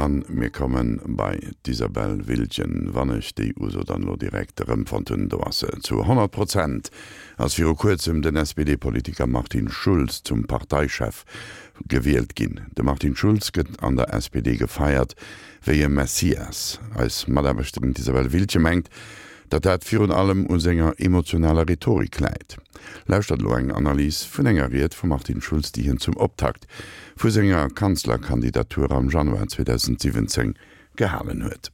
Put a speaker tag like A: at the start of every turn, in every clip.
A: An mir komme bei d'Isabelle Wiltgen, wann ech déi Uso dann elo direkt erëmfonnt hunn. Do ass se. Zu 100 Prozent ass viru kuerzem den SPD-Politiker Martin Schulz zum Parteichef gewielt ginn. De Martin Schulz gëtt an der SPD gefeiert wéi e Messias. Eis Mataarbechterin d'Isabelle Wiltgen mengt, datt dat virun allem u senger emotionaler Rhetorik läit. Lauschtert elo eng Analys vun enger Ried vum Martin Schulz, déi hien zum Optakt vu senger Kanzlerkandidatur am Januar 2017 gehalen huet.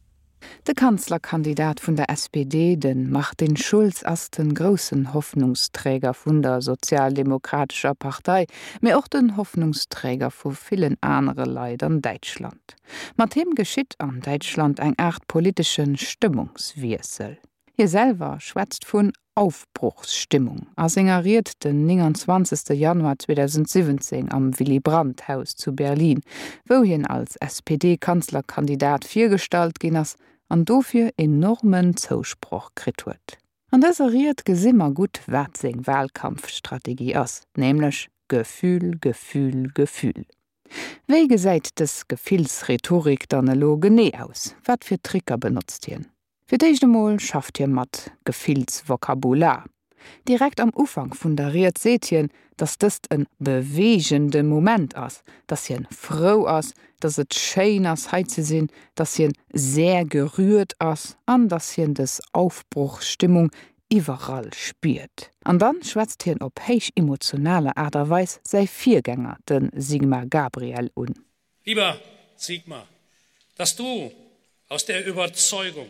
B: De Kanzlerkandidat vun der SPD, de Martin Schulz, ass de groussen Hoffnungsträger vun der Sozialdemokratescher Partei, mee och den Hoffnungsträger vu villen anere Leit an Däitschland. Mat him geschitt an Däitschland eng Aart politesche Stëmmungswiessel. Hie selwer schwätzt vun Aufbruchsstimmung a senger Ried den 29. Januar 2017 am Willy-Brandt-Haus zu Berlin, wou hien als SPD-Kanzlerkandidat virgestallt ginn ass an dofir enormen Zousproch kritt huet. An dëser Ried gesi mer gutt, wat seng Wahlkampfstrategie ass, nämlech Gefühl, Gefühl, Gefühl. Wéi gesäit dës Gefillsrhetorik dann elo genee aus? Wat fir Tricker benotzt hien? Fir d'éischt emol schafft hie mat Gefillsvokabular. Direkt am Ufank vun der Ried seet hien, datt dëst e beweegende Moment ass, datt hien frou ass, datt et schéin ass hei ze sinn, datt hien sehr gerührt ass an datt hien dës Aufbruchsstimmung iwwerall spiert. An dann schwätzt hien op héich emotionaler Aart a Weis säi Virgänger, de Sigmar Gabriel, un.
C: Lieber Sigmar, dass du aus der Überzeugung,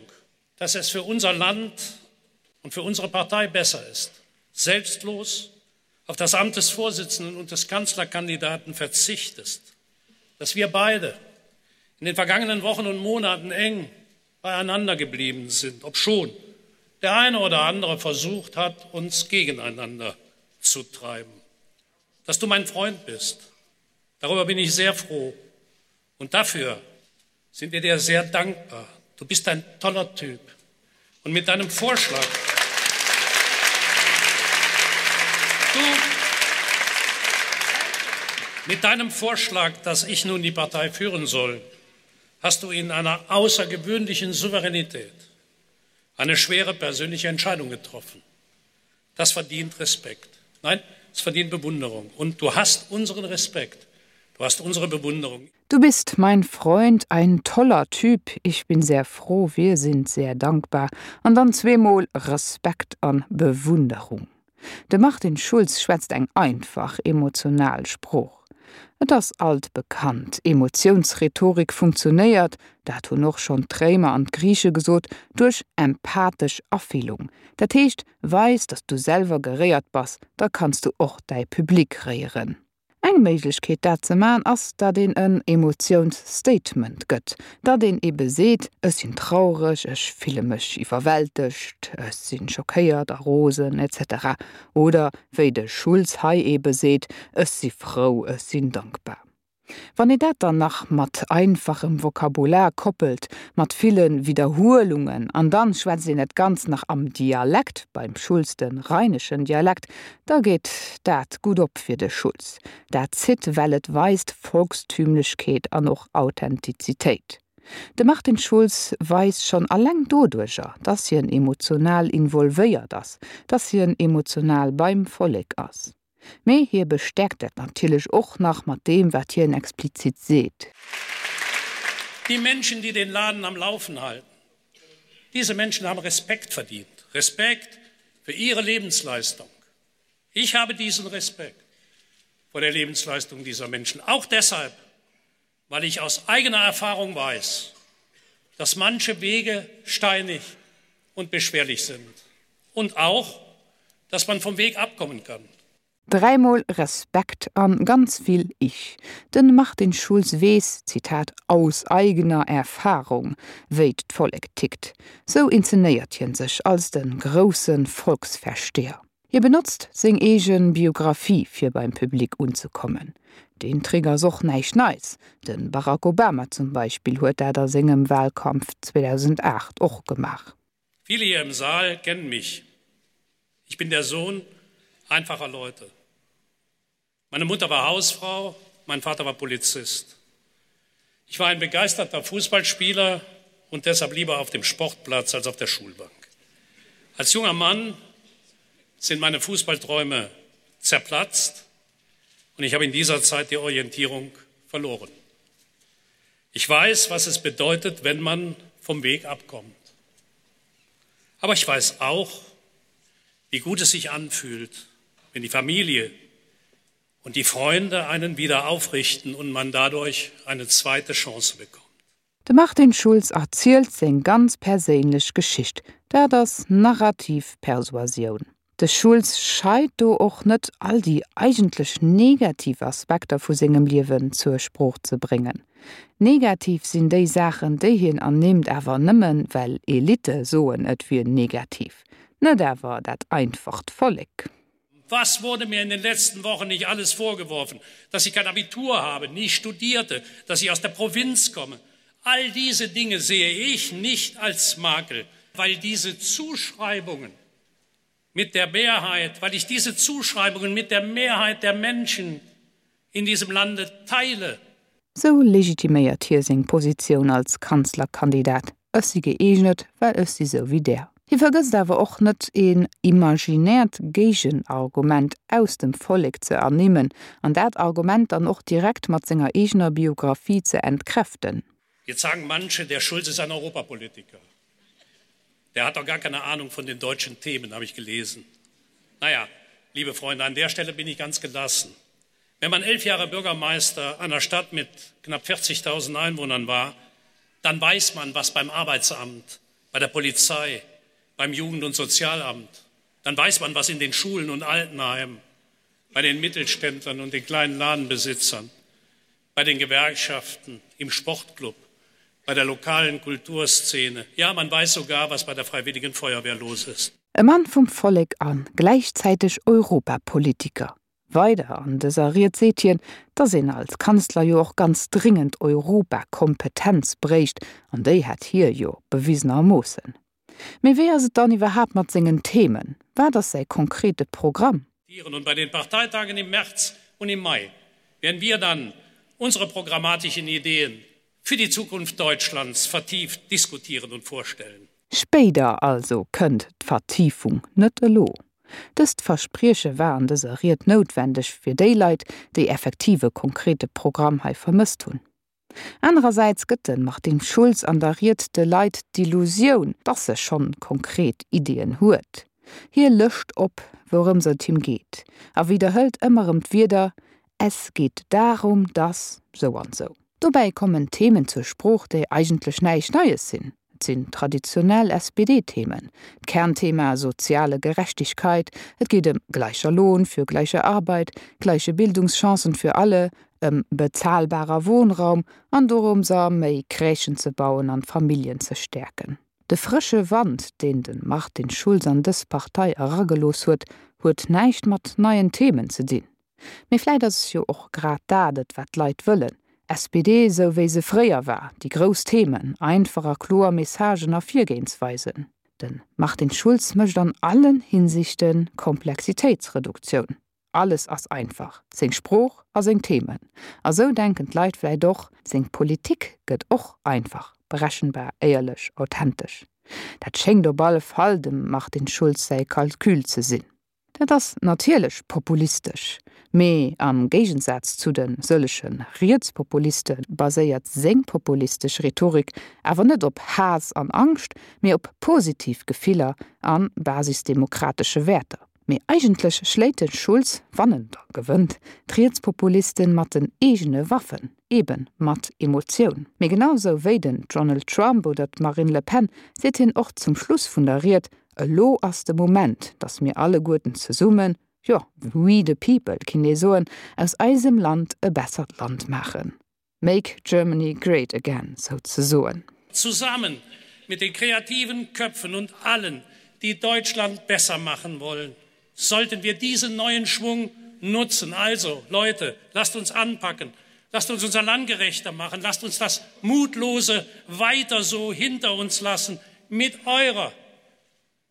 C: dass es für unser Land und für unsere Partei besser ist, selbstlos auf das Amt des Vorsitzenden und des Kanzlerkandidaten verzichtest, dass wir beide in den vergangenen Wochen und Monaten eng beieinander geblieben sind, obschon der eine oder andere versucht hat, uns gegeneinander zu treiben. Dass du mein Freund bist, darüber bin ich sehr froh und dafür sind wir dir sehr dankbar. Du bist ein toller Typ und mit deinem Vorschlag du mit deinem Vorschlag, dass ich nun die Partei führen soll, hast du in einer außergewöhnlichen Souveränität eine schwere persönliche Entscheidung getroffen. Das verdient Respekt. Nein, es verdient Bewunderung. Und du hast unseren Respekt. Du hast unsere Bewunderung.
B: Du bist mein Freund, ein toller Typ, ich bin sehr froh, wir sind sehr dankbar. An dann zweemol Respekt an Bewunderung. De Martin Schulz schwätzt eng einfach, emotional Sprooch. Et ass alt bekannt, Emotiounsrhetorik funktionéiert, dat hunn och schonn d'Réimer an d'Griiche gesot, duerch empathesch Afillung. Dat heescht, weis, datt s du selwer geréiert bass, da kanns du och däi Public réieren. Eng Méiglechkeet dat ze man ass, datt een en Emotiounsstatement gëtt, datt een ebe seet, ech sinn traureg, ech fille mech iwwerwältegt, ech sinn schockéiert a rosen, etc. Oder wéi de Schulz hei ebe seet, ech si frou, ech sinn dankbar. Wann ee dat dann nach mat einfachem Vokabular koppelt, mat ville Widderhuelungen, an dann schwätzt een dat Ganzt nach am Dialekt, beim Schulz de rheineschen Dialekt, da geet dat gutt op fir de Schulz. Dat zitt, well et weist Volkstümlechkeet an och Authentizitéit. De Martin Schulz weist schonn alleng doduercher, dass hien emotional involvéiert ass, dass hien emotional beim Vollek ass. Mee hie bestäerkt dat natierlech och nach mat deem, wat hien explizit seet.
C: Die Menschen, die den Laden am Laufen halten, diese Menschen haben Respekt verdient, Respekt für ihre Lebensleistung. Ich habe diesen Respekt vor der Lebensleistung dieser Menschen, auch deshalb, weil ich aus eigener Erfahrung weiß, dass manche Wege steinig und beschwerlich sind und auch, dass man vom Weg abkommen kann.
B: Dräimol Respekt an ganz vill Ich. Den Martin Schulz weess, Zitat, aus eigener Erfahrung, wéi d'Vollek tickt. Sou inzenéiert hien sech als den groussen Volksversteher. Hie benotzt seng eege Biographie fir beim Public unzekommen. Deen Trick ass och näischt Neits, de Barack Obama zum Beispill huet dat a sengem Wahlkampf 2008 och gemaach.
C: Viele hier im Saal kennen mich. Ich bin der Sohn einfacher Leute. Meine Mutter war Hausfrau, mein Vater war Polizist. Ich war ein begeisterter Fußballspieler und deshalb lieber auf dem Sportplatz als auf der Schulbank. Als junger Mann sind meine Fußballträume zerplatzt und ich habe in dieser Zeit die Orientierung verloren. Ich weiß, was es bedeutet, wenn man vom Weg abkommt. Aber ich weiß auch, wie gut es sich anfühlt, wenn die Familie und die Freunde einen wieder aufrichten und man dadurch eine zweite Chance bekommt.
B: De Martin Schulz erzielt seng ganz perséinlech Geschicht. Dat ass narrativ Persuasioun. De Schulz scheit do och net, all déi eigentlech negativ Aspekter vu sengem Liewen zur Sprooch ze bréngen. Negativ sinn déi Saachen, déi hien ernimmt, awer nëmmen, well Elitte soen, et wier negativ, net awer dat einfacht Vollek.
C: Was wurde mir in den letzten Wochen nicht alles vorgeworfen, dass ich kein Abitur habe, nie studierte, dass ich aus der Provinz komme. All diese Dinge sehe ich nicht als Makel, weil diese Zuschreibungen mit der Mehrheit, weil ich diese Zuschreibungen mit der Mehrheit der Menschen in diesem Lande teile.
B: Sou legitiméiert hie seng Positioun als Kanzlerkandidat, Ech si gëeegnet, well ech si sou wéi där. Hie vergësst awer och net, een imaginäert Géigenargument aus dem Vollek ze ernimmen an dat Argument dann och direkt mat senger eegener Biographie ze entkräften.
C: Jetzt sagen manche, der Schulz ist ein Europapolitiker. Der hat doch gar keine Ahnung von den deutschen Themen, habe ich gelesen. Naja, liebe Freunde, an der Stelle bin ich ganz gelassen. Wenn man elf Jahre Bürgermeister einer Stadt mit knapp 40.000 Einwohnern war, dann weiß man, was beim Arbeitsamt, bei der Polizei, beim Jugend- und Sozialamt, dann weiß man, was in den Schulen und Altenheimen, bei den Mittelständlern und den kleinen Ladenbesitzern, bei den Gewerkschaften, im Sportclub, bei der lokalen Kulturszene. Ja, man weiß sogar, was bei der Freiwilligen Feuerwehr los ist.
B: E Mann vum Vollek an gläichzäiteg Europapolitiker. Weider an dëser Ried seet hien, datt een als Kanzler jo och ganz dringend Europakompetenz bréicht, an déi hätt hie jo bewisenermoossen. Mee wéi ass et dann iwwerhaapt mat sengen Themen? Wat ass säi konkrete Programm?
C: Und bei den Parteitagen im März und im Mai werden wir dann unsere programmatischen Ideen für die Zukunft Deutschlands vertieft diskutieren und vorstellen.
B: Spéider also kënnt d'Vertiefung, net elo. Dëst Versprieche war an dëser Ried noutwendeg fir déi Leit, déi effektiv e konkrete Programm hei vermësst hunn. Anerersäits gëtt de Martin Schulz an der Ried de Leit d'Illusioun, dass e schonn konkret Ideeën huet. Hie lëscht op, wourëms et him geet, a widderhëlt ëmmer erëm d'Wierder, Es geht darum, dass sou an sou. Dobäi kommen Themen zur Sprooch, déi eigentlech näischt Neies sinn. Et sinn traditionell SPD-Themen, d'Kernthema soziale Gerechtigkeit, et geet ëm gleicher Lohn für gleiche Arbeit, gleiche Bildungschancen für alle, ëm bezahlbarer Wohnraum an dorëms a méi Crèchen ze bauen an d'Familljen ze stäerken. De frësche Wand, deen de Martin Schulz an dës Partei eragelooss huet, huet näischt mat neien Themen ze dinn. Mee vläit ass jo och grad dat et, wat d'Leit wëllen, SPD esou wéi se fréier war, déi grouss Themen, einfach a kloer Messagen a Virgehensweisen. De Martin Schulz mécht an allen Hinsichte Komplexitéitsreduktioun. Alles ass einfach, seng Sprooch a seng Themen. A sou denken d'Leit vläit och, seng Politik gëtt och einfach, berechenbar, éierlech, authentesch. Dat schéngt op alle Fall dem Martin Schulz säi Calcul ze sinn. Dat ass natierlech populistesch, mee am Géigensaz zu de sëllege Rietspopuliste baséiert seng populistesch Rhetorik awer net op Haass an Angscht, mee op positiv Gefiller a basisdemokratesche Wäerter. Mee eigentlech schléit de Schulz, wann en da gewënnt, d'Rietspopulisten mat den eegene Waffen, eben mat Emotioun. Mee genau sou wéi den Donald Trump oder d'Marine Le Pen seet hien och zum Schluss vun der Ried, Elo ass de Moment, datt mir alleguerten zesummen, jo, we the people kinnt ee soen, aus eisem Land e bessert Land maachen. Make Germany great again, souzesoen.
C: Zusammen mit den kreativen Köpfen und allen, die Deutschland besser machen wollen, sollten wir diesen neuen Schwung nutzen. Also, Leute, lasst uns anpacken, lasst uns unser Land gerechter machen, lasst uns das Mutlose weiter so hinter uns lassen. Mit eurer,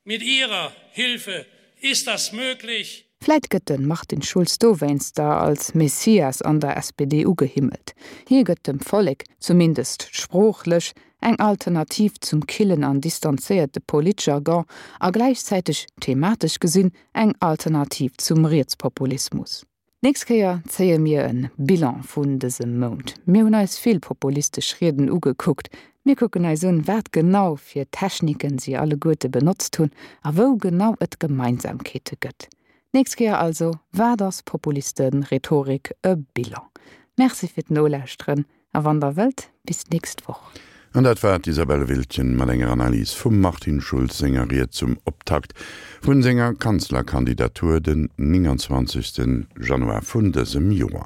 C: mit ihrer Hilfe ist das möglich.
B: Vläit gëtt de Martin Schulz dowéinster als Messias an der SPD ugehimmelt. Hie gëtt dem Vollek, zumindest sproochlech, eng Alternativ zum killen an distanzéierte Politjargon a gläichzäiteg, thematesch gesinn, eng Alternativ zum Rietspopulismus. D'nächst Kéier zéie mir e Bilan vun dësem Mount. Mir hunn eis vill populistesch Rieden ugekuckt. Mir kucken eis un, wat genau fir Techniken si alleguerte benotzt hunn a wou genau et Gemeinsamkeete gëtt. D'nächst Kéier also, Wat ass Populiste-Rhetorik? E Bilan. Merci fir d'Nolauschteren A wann der wëllt, bis d'nächst Woch.
A: An dat war d'Isabelle Wiltgen mat enger Analys vum Martin Schulz senger Ried zum Optakt vun senger Kanzlerkandidatur den 29 Januar vun dësem Joer.